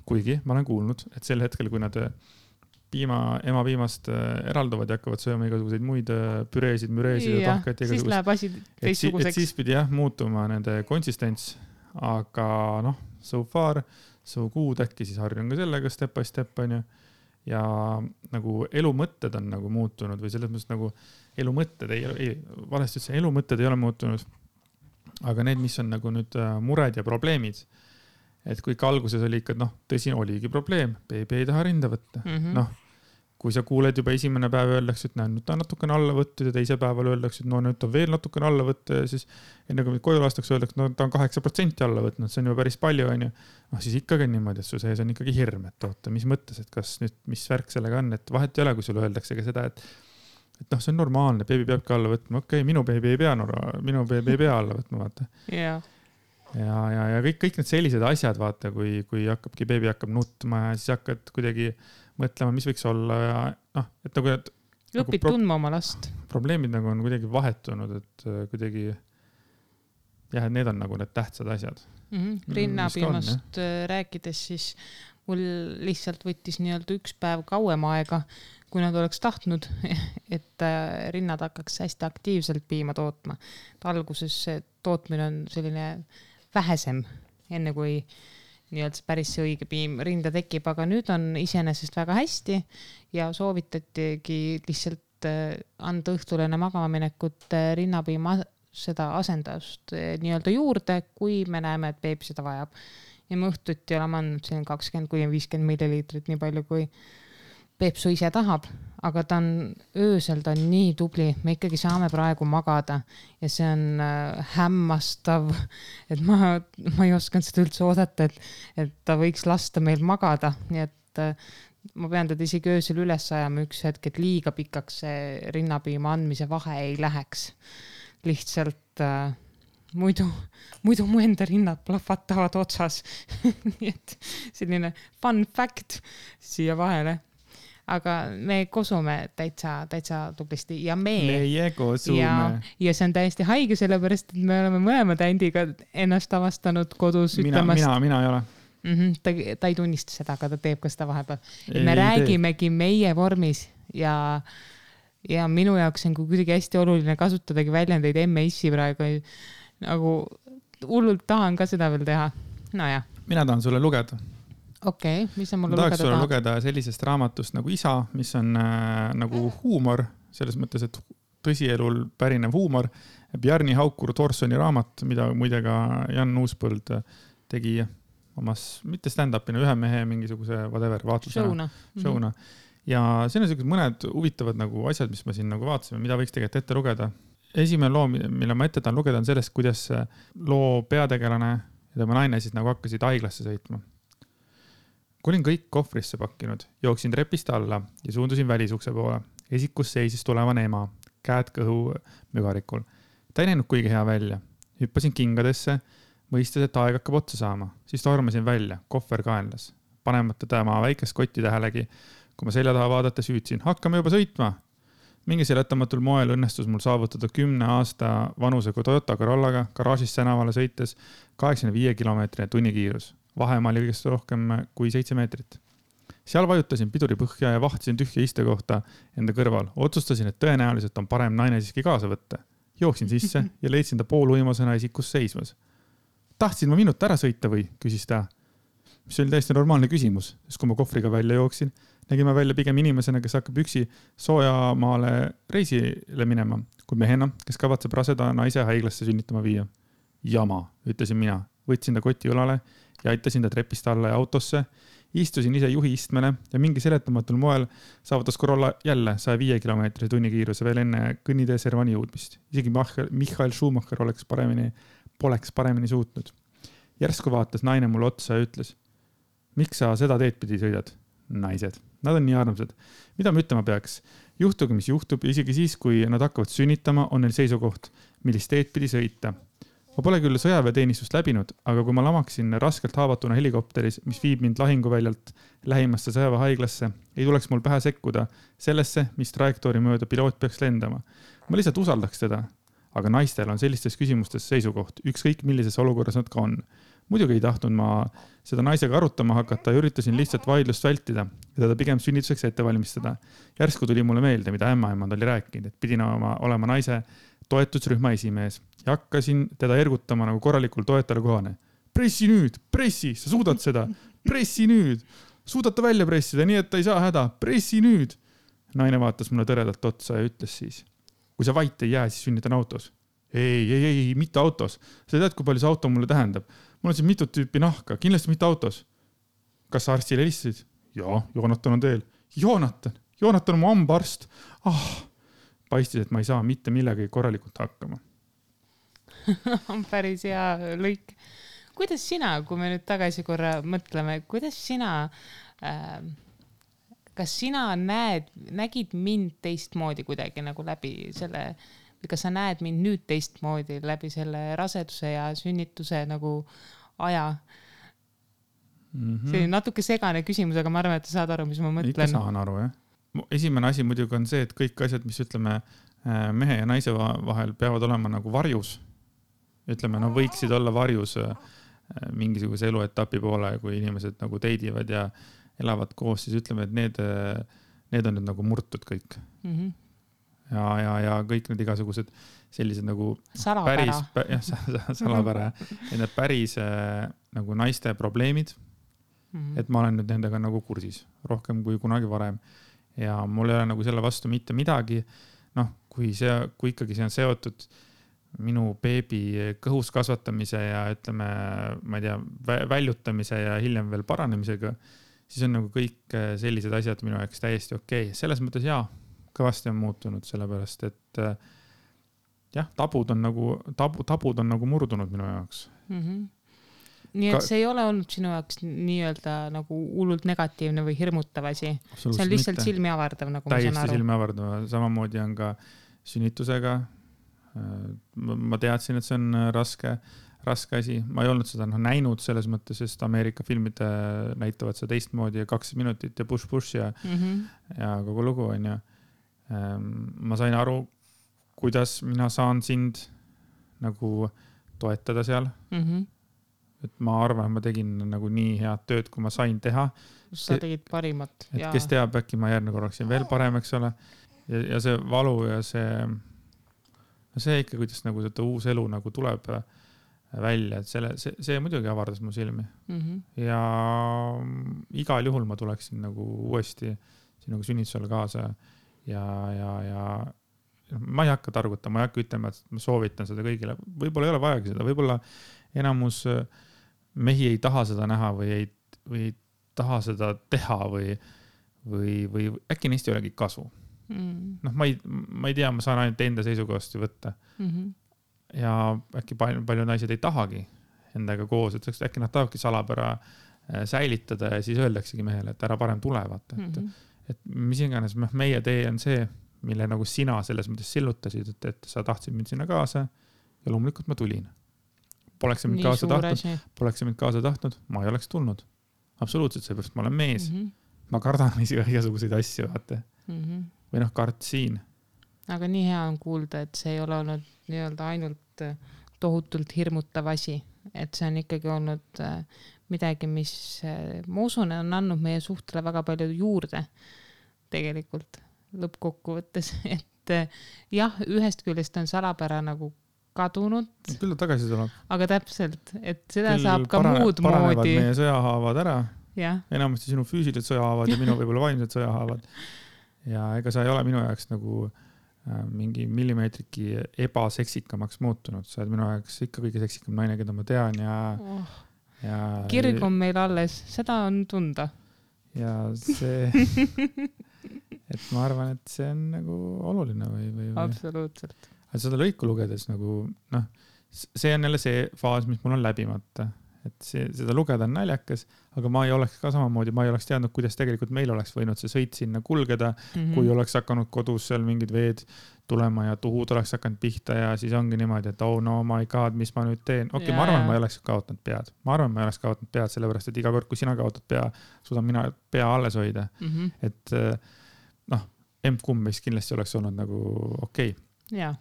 Kuigi ma olen kuulnud, et sel hetkel, kui nad ema piimast eralduvad ja hakkavad sööma igasuguseid muid püreesid, müreesid ja tahkaid. Siis läheb asi teistsuguseks. Et siis pidi muutuma nende konsistents, aga noh, so far, so good, äkki siis harjun ka sellega step by step, on ju. Ja nagu elu mõtted on nagu muutunud või selles mõttes nagu elu mõtted valesti üldse, elu mõtted ei ole muutunud, aga need, mis on nagu nüüd mured ja probleemid, et kui ikka alguses oli ikka, noh, tõsi, oligi probleem, beebi ei taha rinda võtta. Noh, kui sa kuuled juba esimene päev öeldakse, et nüüd ta on natukene alla võttud ja teise päeval öeldakse, et no nüüd ta veel natukene alla võtta ja siis enne kui koju lastakse öeldakse, no ta on 8% alla võtnud, see on juba päris palju, on ju. No siis ikkagi on niimoodi, et su sees on ikkagi hirm, et oota, mis mõttes, et kas nüüd, mis värk sellega on, et vahet ei ole, kui sulle öeldakse ka seda, et noh, see on normaalne, beebi peabki alla võtma. Okei, minu beebi ei pea alla võtma, vaata. Ja kõik need sellised asjad, vaata, kui beebi hakkab nutma ja siis hakkad kuidagi mõtlema, mis võiks olla ja noh, et nagu õpid tundma oma last. Probleemid nagu on kuidagi vahetunud, et kuidagi jah, et need on nagu need tähtsad asjad. Rinnapiimast rääkides, siis mul lihtsalt võttis nii-öelda üks päev kauem aega, kui nad oleks tahtnud, et rinnad hakkaks hästi aktiivselt piima tootma. Alguses tootmine on selline vähesem, enne kui nii-öelda päris see õige piim rinda tekib, aga nüüd on iseenesest väga hästi ja soovitatigi lihtsalt anda õhtul enne magamaminekut rinnapiima seda asendust nii-öelda juurde, kui me näeme, et beebi seda vajab. Ja me õhtuti oleme andnud 20-50 milliliitrit, nii palju kui Peepsu ise tahab, aga ta on öösel, ta on nii tubli, me ikkagi saame praegu magada ja see on hämmastav, et ma ei osanud seda üldse oodata, et ta võiks lasta meil magada, nii et ma pean teda isegi öösel üles ajama üks hetk, et liiga pikaks see rinnapiima andmise vahe ei läheks. Lihtsalt muidu mu enda rinnad plahvatavad otsas. Nii et selline fun fact siia vahele. Aga me kosume täitsa tublisti ja meie kosume. Ja see on täiesti haige, sellepärast, et me oleme mõlemad Andiga ennast avastanud kodus ütlemast. Mina ei ole. Ta ei tunnista seda, aga ta teeb ka seda vahepeal. Me räägimegi meie vormis ja minu jaoks on kuidagi hästi oluline kasutadagi väljendeid emme-issi praegu. Nagu hullult tahan ka seda veel teha. No ja. Mina tahan sulle lugeda. Okei, mis on mulle lugeda tahab? Lugeda sellisest raamatust nagu Isa, mis on nagu huumor, selles mõttes, et tõsielul pärinev huumor. Bjarni Haukur Thorsoni raamat, mida muidega Jan Uuspõld tegi omas, mitte stand-upina, ühe mehe mingisuguse whatever, vaatlusena. Showna. Ja siin on mõned huvitavad nagu asjad, mis ma siin nagu vaatasime, mida võiks tegelikult ette lugeda. Esimene loo, mille ma ette tahan lugeda, on sellest, kuidas loo peategelane ja tema naine siis nagu hakkasid haiglasse sõitma. Kui olin kõik kohvrisse pakkinud, jooksin trepist alla ja suundusin välisukse poole. Esikus seisis tulevane ema, käed kõhu mügarikul. Ta ei näinud kuigi hea välja. Hüppasin kingadesse, mõistes, et aeg hakkab otsa saama. Siis tormasin välja, kohver kaenlas. Panemata tema väikest kotti tähelegi, kui ma selja taha vaadates hüüdsin, hakkame juba sõitma. Mingi seletamatul moel õnnestus mul saavutada 10 aasta vanusega Toyota Corollaga garaažist tänavale sõites 85 kilomeetri tunnikiirus. Vahemaa oli kõigest rohkem kui 7 meetrit. Seal vajutasin piduri põhja ja vahtisin tühja istekohta enda kõrval. Otsustasin, et tõenäoliselt on parem naine siiski kaasa võtta. Jooksin sisse ja leidsin ta pooluimasena esikus seismas. Tahtsin ma minut ära sõita või, küsis ta. Mis oli täiesti normaalne küsimus, sest kui ma kohvriga välja jooksin, nägime välja pigem inimesena, kes hakkab üksi soojamaale reisile minema, kui mehena, kes kavatseb raseda naise haiglasse sünnitama viia. Jama, ütlesin mina. Võtsin ta koti õlale ja aitasin ta trepist alla ja autosse. Istusin ise juhi istmele ja mingi seletamatul moel saavutas Corolla jälle 105 km tunnikiiruse veel enne kõnnitee Servani jõudmist. Isegi Michael Schumacher poleks paremini suutnud. Järsku vaatas naine mulle otsa ja ütles, miks sa seda teed pidi sõidad? Naised. Nad on nii armsad. Mida ma ütlema peaks? Juhtugi, mis juhtub, isegi siis, kui nad hakkavad sünnitama, on neil seisukoht, millist teed pidi sõita. Ma pole küll sõjaväeteenistust läbinud, aga kui ma lamaksin raskelt haavatuna helikopteris, mis viib mind lahinguväljalt lähimasse sõjaväehaiglasse, ei tuleks mul pähe sekkuda sellesse, mis trajektoori mööda piloot peaks lendama. Ma lihtsalt usaldaks teda, aga naistel on sellistes küsimustes seisukoht, ükskõik millises olukorras nad ka on. Muidugi ei tahtnud ma seda naisega arutama hakata ja üritasin lihtsalt vaidlust vältida ja teda pigem sünnituseks ette valmistada. Järsku tuli mulle meelde, mida ämmaemand oli rääkinud, et pidin olema naise toetusrühma esimees ja hakkasin teda ergutama nagu korralikul toetajale kohane. Pressi nüüd, pressi, sa suudad seda, pressi nüüd, suudad ta välja pressida, nii et ta ei saa häda, pressi nüüd. Naine vaatas mulle tõredalt otsa ja ütles siis, kui sa vait ei jää, siis sünnitan autos. Ei, mitte autos. Sa tead, kui palju see auto mulle tähendab. Mul on siin mitut tüüpi nahka, kindlasti mitte autos. Kas sa arstile helistasid? Jaa, Joonatan on teel. Joonatan on mu hambaarst. Paistis, et ma ei saa mitte millegagi korralikult hakkama. On päris hea lõik. Kuidas sina, kui me nüüd tagasi korra mõtleme, kuidas sina, kas sina nägid mind teistmoodi kuidagi nagu läbi selle, või kas sa näed mind nüüd teistmoodi läbi selle raseduse ja sünnituse nagu aja? See on natuke segane küsimus, aga ma arvan, et sa saad aru, mis ma mõtlen. Ikka saan aru, jah. Esimene asi muidugi on see, et kõik asjad, mis ütleme mehe ja naise vahel peavad olema nagu varjus. Ütleme, no võiksid olla varjus mingisuguse eluetapi poole, kui inimesed nagu teidivad ja elavad koos, siis ütleme, et need on nüüd nagu murtud kõik. Ja kõik need igasugused sellised nagu salapära. Salapära. Need päris nagu naiste probleemid, et ma olen nüüd nendega nagu kursis rohkem kui kunagi varem. Ja mul ei ole nagu selle vastu mitte midagi. Noh, kui ikkagi see on seotud minu beebi kõhus kasvatamise ja ütleme, ma ei tea, väljutamise ja hiljem veel paranemisega, siis on nagu kõik sellised asjad minu jaoks täiesti okei. Selles mõttes jaa, kõvasti on muutunud sellepärast, et jah, tabud on nagu murdunud minu jaoks. Nii et see ei ole olnud sinu jaoks nii-öelda nagu hullult negatiivne või hirmutav asi. See on lihtsalt silmi avardav, nagu ma saan aru. Täiesti silmi avardav. Samamoodi on ka sünnitusega. Ma teadsin, et see on raske asi. Ma ei olnud seda näinud selles mõttes, sest Ameerika filmid näitavad seda teistmoodi ja 2 minutit ja push ja kogu lugu on ja ma sain aru, kuidas mina saan sind nagu toetada seal. Et ma arvan, et ma tegin nagu nii head tööd, kui ma sain teha. Sa tegid parimat. Et kes teab, äkki ma järgmine korraksin veel parem, eks ole. Ja see valu ja see ikka, kuidas nagu seda uus elu nagu tuleb välja, et see muidugi avardas mu silmi. Ja igal juhul ma tuleksin nagu uuesti sinuga sünnitusele kaasa ja ma ei hakka targutama, ma ei hakka ütlema, et ma soovitan seda kõigile. Võib-olla ei ole vajagi seda, võib-olla enamus mehi ei taha seda näha või ei taha seda teha või äkki neist ei olegi kasu. Noh, ma ei tea, ma saan ainult enda seisukohast võtta. Ja äkki palju naised ei tahagi endaga koos, et äkki nad tahavadki salapära säilitada ja siis öeldaksegi mehele, et ära parem tule, vaata. Et mis iganes meie tee on see, mille nagu sina selles mõttes sillutasid, et sa tahtsid mind sinna kaasa ja loomulikult ma tulin. Poleks mind kaasa tahtnud, ma ei oleks tulnud. Absoluutselt, seepärast ma olen mees. Ma kardan igasuguseid asju, vaata. Või kartsin. Aga nii hea on kuulda, et see ei ole olnud nii-öelda ainult tohutult hirmutav asi. Et see on ikkagi olnud midagi, mis ma usun, on andnud meie suhtele väga palju juurde tegelikult lõppkokkuvõttes. Et jah, ühest küljest on salapära nagu kadunud. Küll ta tagasi tuleb. Aga täpselt, et seda saab ka muud moodi. Paranevad meie sõjahaavad ära. Ja. Enamasti sinu füüsilised sõjahaavad ja minu võib-olla vaimsed sõjahaavad. Ja ega sa ei ole minu jaoks nagu mingi millimeetriki ebaseksikamaks muutunud. Sa oled minu jaoks ikka kõige seksikam naine, keda ma tean ja Kirg on meil alles, seda on tunda. Ja see, et ma arvan, et see on nagu oluline või. Absoluutselt. Seda lõiku lugedes nagu, see on jälle see faas, mis mul on läbimata. Et seda lugeda on naljakas, aga ma ei oleks ka samamoodi, ma ei oleks teadnud, kuidas tegelikult meil oleks võinud see sõit sinna kulgeda, kui oleks hakanud kodus seal mingid veed tulema ja tuhud oleks hakanud pihta ja siis ongi niimoodi, et oh no my god, mis ma nüüd teen. Okei, ma arvan, ma ei oleks kaotanud pead. Ma arvan, ma ei oleks kaotanud pead, sellepärast, et iga kord, kui sina kaotad pea, suudan mina pea alles hoida. Et emb-kumb meist kindlasti oleks olnud nagu okei. Jaa.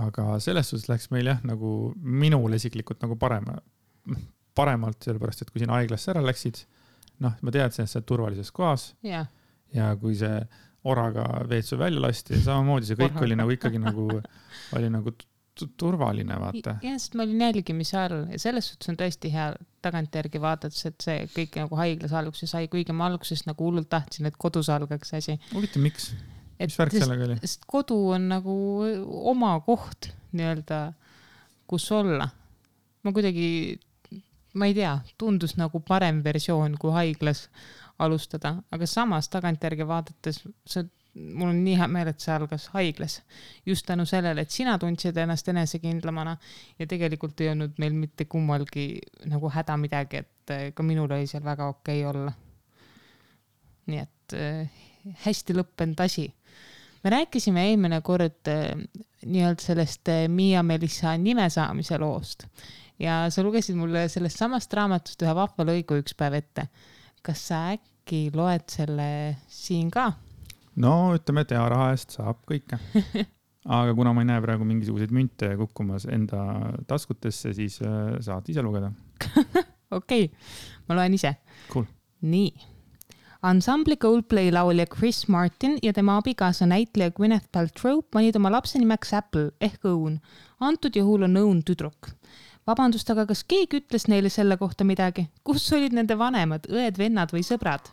Aga selles suhtes läks meil jah, nagu minul isiklikult nagu paremalt, sellepärast, et kui siin haiglasse ära läksid, ma teadsin, et see on turvalises kohas ja kui see oraga veetsu välja lasti, samamoodi see kõik oli nagu ikkagi oli nagu turvaline, vaata. Ja, sest ma olin jälgimise all ja selles suhtes on tõesti hea tagantjärgi vaadates, et see kõik nagu haiglas alguses sai, kuigi ma alguses nagu hullult tahtsin, et kodus algaks asi. Huvitav, miks? Mis värk sellega oli? Sest kodu on nagu oma koht nii-öelda, kus olla. Ma ei tea, tundus nagu parem versioon kui haiglas alustada, aga samas tagantjärgi vaadates mul on nii hea meel, et see algas haiglas. Just tänu sellele, et sina tundsid ennast enesekindlamana ja tegelikult ei olnud meil mitte kummalgi nagu häda midagi, et ka minul oli seal väga okei olla. Nii et hästi lõppenud asi. Me rääkisime eelmine kord nii-öelda sellest Miia-Melissa nime saamise loost ja sa lugesid mulle sellest samast raamatust ühe vahva lõigu üks päev ette. Kas sa äkki loed selle siin ka? No ütleme, et raha eest saab kõike. Aga kuna ma ei näe praegu mingisuguseid münte kukkumas enda taskutesse, siis saad ise lugeda. Okei, ma loen ise. Cool. Nii. Ansambli Coldplay laulja Chris Martin ja tema abikaasa näitleja Gwyneth Paltrow panid oma lapse nimeks Apple ehk Õun. Antud juhul on Õun tüdruk. Vabandust, aga kas keegi ütles neile selle kohta midagi? Kus olid nende vanemad, õed, vennad või sõbrad?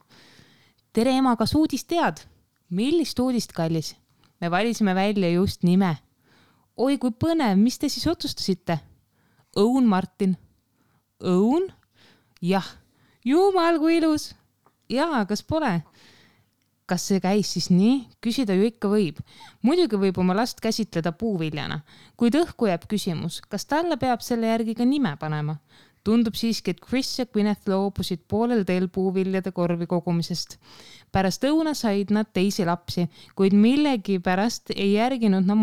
Tere ema, kas uudist tead? Millist uudist, kallis? Me valisime välja just nime. Oi, kui põnev, mis te siis otsustasite? Õun Martin. Õun? Jah. Jumal, kui ilus. Jaa, kas pole? Kas see käis siis nii? Küsida ju ikka võib. Muidugi võib oma last käsitleda puuviljana. Kuid õhku jääb küsimus, kas talle peab selle järgi ka nime panema? Tundub siiski, et Chris ja Gwyneth loobusid poolel teel puuviljade korvi kogumisest. Pärast õuna said nad teisi lapsi, kuid millegi pärast ei järginud nad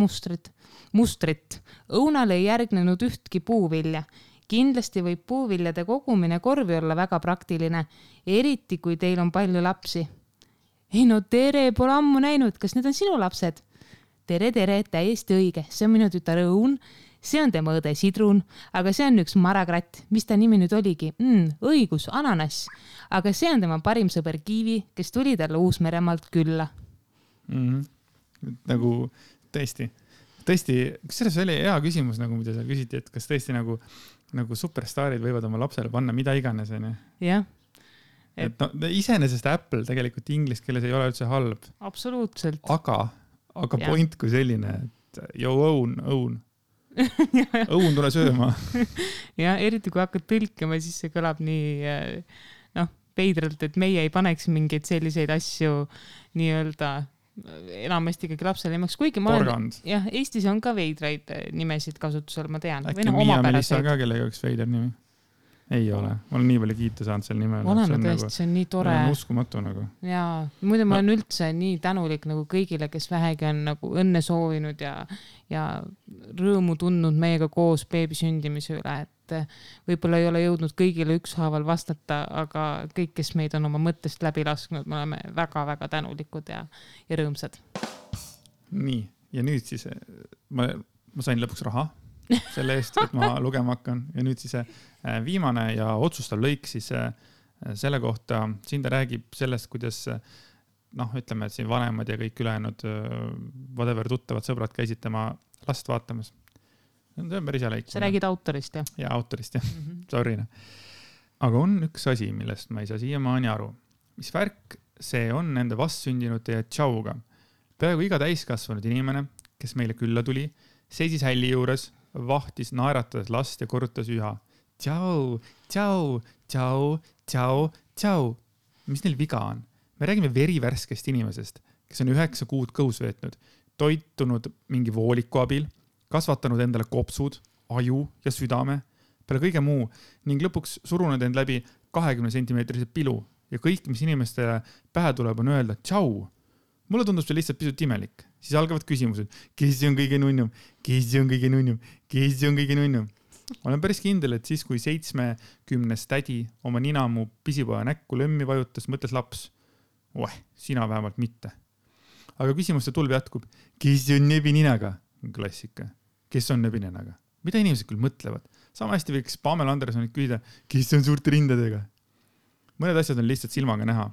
mustrit. Õunale ei järgnenud ühtki puuvilja. Kindlasti võib puuviljade kogumine korvi olla väga praktiline, eriti kui teil on palju lapsi. Ei no tere, pole ammu näinud, kas need on sinu lapsed? Tere, täiesti õige, see on minu tütar Õun, see on tema õde Sidrun, aga see on üks marakratt, mis ta nimi nüüd oligi? Õigus, ananas, aga see on tema parim sõber Kiivi, kes tuli talle Uus-Meremaalt külla. Nagu tõesti, kas selles oli hea küsimus, nagu mida sa küsiti, et kas tõesti nagu superstaarid võivad oma lapsele panna mida iganes, on ju? Jah. Et iseenesest Apple tegelikult inglise keeles ei ole üldse halb. Absoluutselt. Aga point kui selline, et Õun. Õun tule sööma. Ja eriti kui hakkad tõlkima, siis see kõlab nii veidralt, et meie ei paneks mingeid selliseid asju nii-öelda enamasti ikkagi lapsele nimeks, kuigi ma olen, Eestis on ka veidraid nimesid kasutusel, ma tean. Äkki Miia-Melissa ka kellega üks veider nimi? Ei ole. Ma olen nii palju kiita saanud selle nimel. Oleme tõesti, see on nii tore. Uskumatu nagu. Jaa, muidu ma olen üldse nii tänulik nagu kõigile, kes vähegi on nagu õnne soovinud ja rõõmu tundnud meiega koos beebi sündimise üle, et võib-olla ei ole jõudnud kõigile ükshaaval vastata, aga kõik, kes meid on oma mõttest läbi lasknud, me oleme väga-väga tänulikud ja rõõmsad. Nii, ja nüüd siis ma sain lõpuks raha selle eest, et ma lugema hakkan ja nüüd siis viimane ja otsustav lõik siis selle kohta, siin ta räägib sellest, kuidas ütleme, et siin vanemad ja kõik ülejäänud whatever tuttavad sõbrad käisid tema last vaatamas. See on päris hea lõik. Sa räägid autorist, jah? Ja autorist, jah. Sorry. Aga on üks asi, millest ma ei saa siiamaani aru. Mis värk see on nende vastsündinute ja tšauga. Peaaegu iga täiskasvanud inimene, kes meile külla tuli, seisis hälli juures, vahtis naeratades last ja korrutas üha. tšau, tšau, tšau, tšau, tšau. Mis neil viga on? Me räägime verivärskest inimesest, kes on 9 kuud kõhus veetnud, toitunud mingi vooliku abil, kasvatanud endale kopsud, aju ja südame, peale kõige muu ning lõpuks surunud end läbi 20 sentimeetrise pilu ja kõik, mis inimestele pähe tuleb, on öelda tšau. Mulle tundub see lihtsalt pisut imelik. Siis algavad küsimused, kes on kõige nunnum, kes on kõige nunnum, kes on kõige nunnum. Olen päris kindel, et siis, kui 70 tädi oma nina mu pisipoja näkku lömmi vajutas, mõtles laps. Sina vähemalt mitte. Aga küsimuste tulv jätkub. Kes on nebininaga? Klassika. Kes on nebininaga? Mida inimesed küll mõtlevad? Sama hästi võiks Pamela Andersonit küsida, kes on suurte rindadega? Mõned asjad on lihtsalt silmaga näha.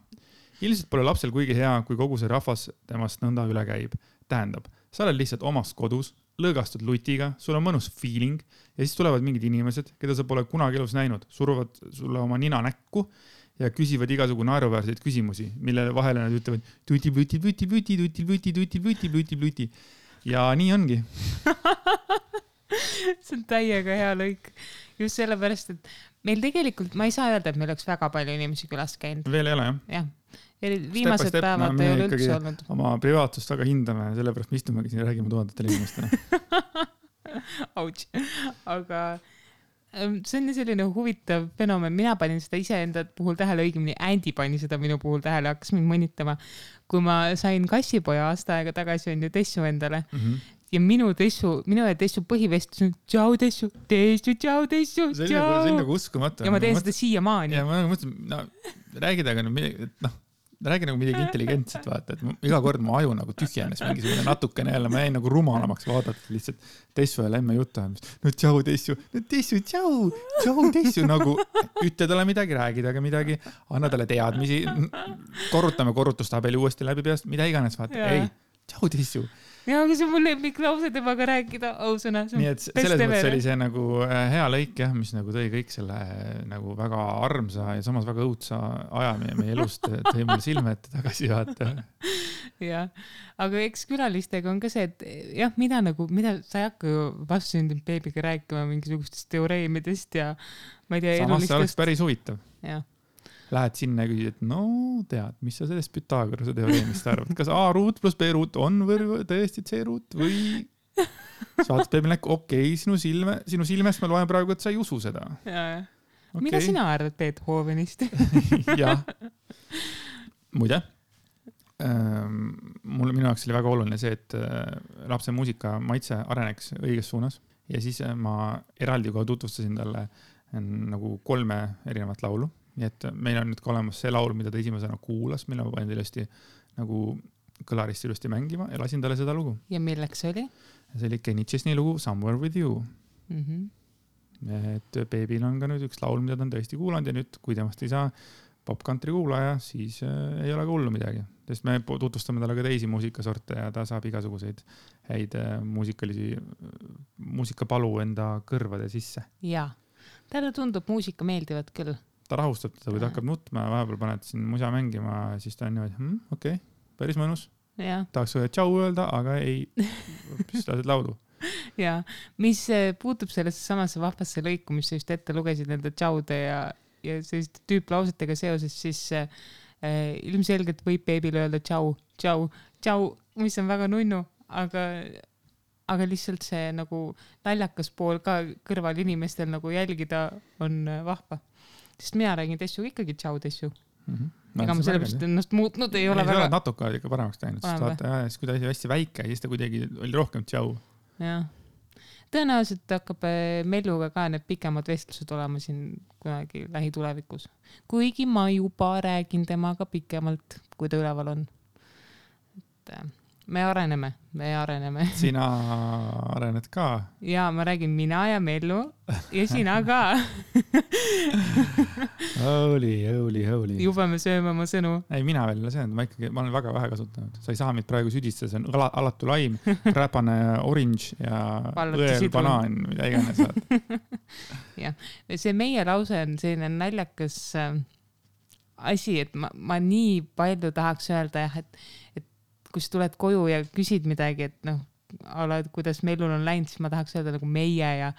Ilmselt pole lapsel kuigi hea, kui kogu see rahvas temast nõnda üle käib. Tähendab, sa oled lihtsalt omas kodus, lõõgastud lutiga, sul on mõnus feeling ja siis tulevad mingid inimesed, keda sa pole kunagi elus näinud, suruvad sulle oma nina näkku ja küsivad igasugu naeruväärseid küsimusi, mille vahele nad ütlevad tuti, tuti, tuti, tuti, tuti, tuti, tuti, tuti, tuti, tuti. Ja nii ongi. See on täiega hea lõik. Just sellepärast, et meil tegelikult, ma ei saa öelda, et meil oleks väga palju inimesi külas käinud. Veel ei ole, jah? Jah. Viimased päevad ei ole üldse olnud. Oma privaatsust väga hindame, sellepärast me istumegi siin ja räägime tuhandatele inimestele. Ouch. Aga see on selline huvitav fenomen. Mina panin seda iseenda puhul tähele, õigemini Andy pani seda minu puhul tähele, hakkas mind mõnitama. Kui ma sain kassipoja aasta aega tagasi on ju Tessu endale ja minu ja Tessu põhivestlus on tšau Tessu, tšau Tessu, tšau. See on nagu uskumatu. Ja ma teen seda siiamaani. Ja ma mõtlen, räägi nagu midagi intelligentset, vaata, et iga kord mu aju nagu tühjenes mingisugune natukene jälle, ma jäin nagu rumalamaks vaadata lihtsalt Tessu ja Lemme juttu. No tšau Tessu, tšau Tessu, nagu ütle talle midagi, räägi taga midagi, anna talle teadmisi, korrutame korrutustabeli uuesti läbi peast, mida iganes, vaata, ei, tšau Tessu. Ja, aga see on mul lemmiklause temaga rääkida, ausõna. Nii et selles mõttes oli see nagu hea lõik, jah, mis nagu tõi kõik selle nagu väga armsa ja samas väga õudsa aja meie elust tõi mulle silme ette tagasi vaata. Jah, aga eks külalistega on ka see, et jah, mida sa ei hakka ju vastsündinud beebiga rääkima mingisugustest teoreemidest ja ma ei tea, samas see oleks päris huvitav. Jah. Lähed sinna ja küsid, et no tead, mis sa sellest Pythagorase teoreemist arvad? Kas A ruut plus B ruut on või tõesti C ruut või saates beebil näkku, okei, sinu silmest ma loen praegu, et sa ei usu seda. Okay. Mida sina arvad Beethovenist? Jah. Muide, minu jaoks oli väga oluline see, et lapse muusika maitse areneks õiges suunas ja siis ma eraldi kohe tutvustasin talle nagu 3 erinevat laulu. Nii et meil on nüüd ka olemas see laul, mida ta esimesena kuulas, mille ma panin ilusti nagu kõlarist ilusti mängima ja lasin talle seda lugu. Ja milleks see oli? See oli Kenny Chesney lugu Somewhere With You. Et beebil on ka nüüd üks laul, mida ta on tõesti kuulanud ja nüüd, kui temast ei saa pop-country kuulaja, siis ei ole ka hullu midagi. Sest me tutvustame talle ka teisi muusikasorte ja ta saab igasuguseid häid muusikapalu enda kõrvade sisse. Jaa, talle tundub muusika meeldivad küll. Ta rahustab teda, kui ta hakkab nutma ja vahepeal paned siin musa mängima, siis ta on niimoodi, okei, päris mõnus. Tahaks tšau öelda, aga ei, siis lased laulu. Ja, mis puutub sellesse samasse vahvasse lõiku, mis sa just ette lugesid nende tšaude ja selliste tüüplausetega seoses, siis ilmselgelt võib beebil öelda tšau, mis on väga nunnu, aga lihtsalt see nagu naljakas pool ka kõrval inimestel nagu jälgida on vahva. Sest mina räägin Tessu ikkagi tšau Tessu. Ega ma sellepärast ennast muutnud ei ole väga... Ei, sa natuke ikka paremaks teinud, sest kui ta oli hästi väike, siis ta kuidagi oli rohkem tšau. Jah. Tõenäoliselt hakkab Melluga ka need pikemad vestlused olema siin kunagi lähitulevikus. Kuigi ma juba räägin temaga pikemalt, kui ta üleval on. Me areneme. Sina arened ka. Ja, ma räägin mina ja Mellu ja sina ka. Holy. Juba me sööme oma sõnu. Ei, mina veel ei söönud, ma olen väga vähe kasutanud. Sa ei saa mind praegu südistada, see on alatu laim, räpane orange ja õel banaan, mida iganes saad. Ja, see meie lause on selline naljakas asi, et ma nii palju tahaks öelda, et kui sa tuled koju ja küsid midagi, et et kuidas Mellul on läinud, siis ma tahaks öelda nagu meie ja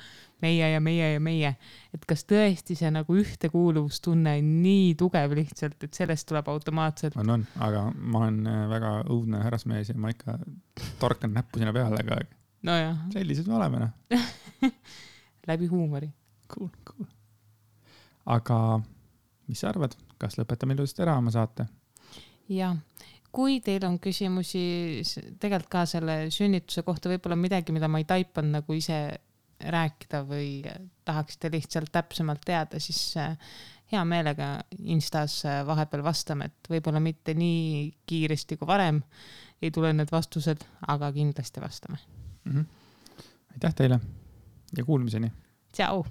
meie ja meie ja meie. Et kas tõesti see nagu ühtekuuluvustunne on nii tugev lihtsalt, et sellest tuleb automaatselt. On, aga ma olen väga õudne härrasmees ja ma ikka torkan näppu sinna peale, aga nojah. Sellised me oleme. Läbi huumori. Cool. Aga mis sa arvad, kas lõpetame ilusasti ära oma saate? Ja, kui teil on küsimusi tegelikult ka selle sünnituse kohta, võib-olla midagi, mida ma ei taipanud nagu ise rääkida või tahaksite lihtsalt täpsemalt teada, siis hea meelega Instas vahepeal vastame, et võib-olla mitte nii kiiresti kui varem ei tule need vastused, aga kindlasti vastame. Aitäh teile ja kuulmiseni. Tšau!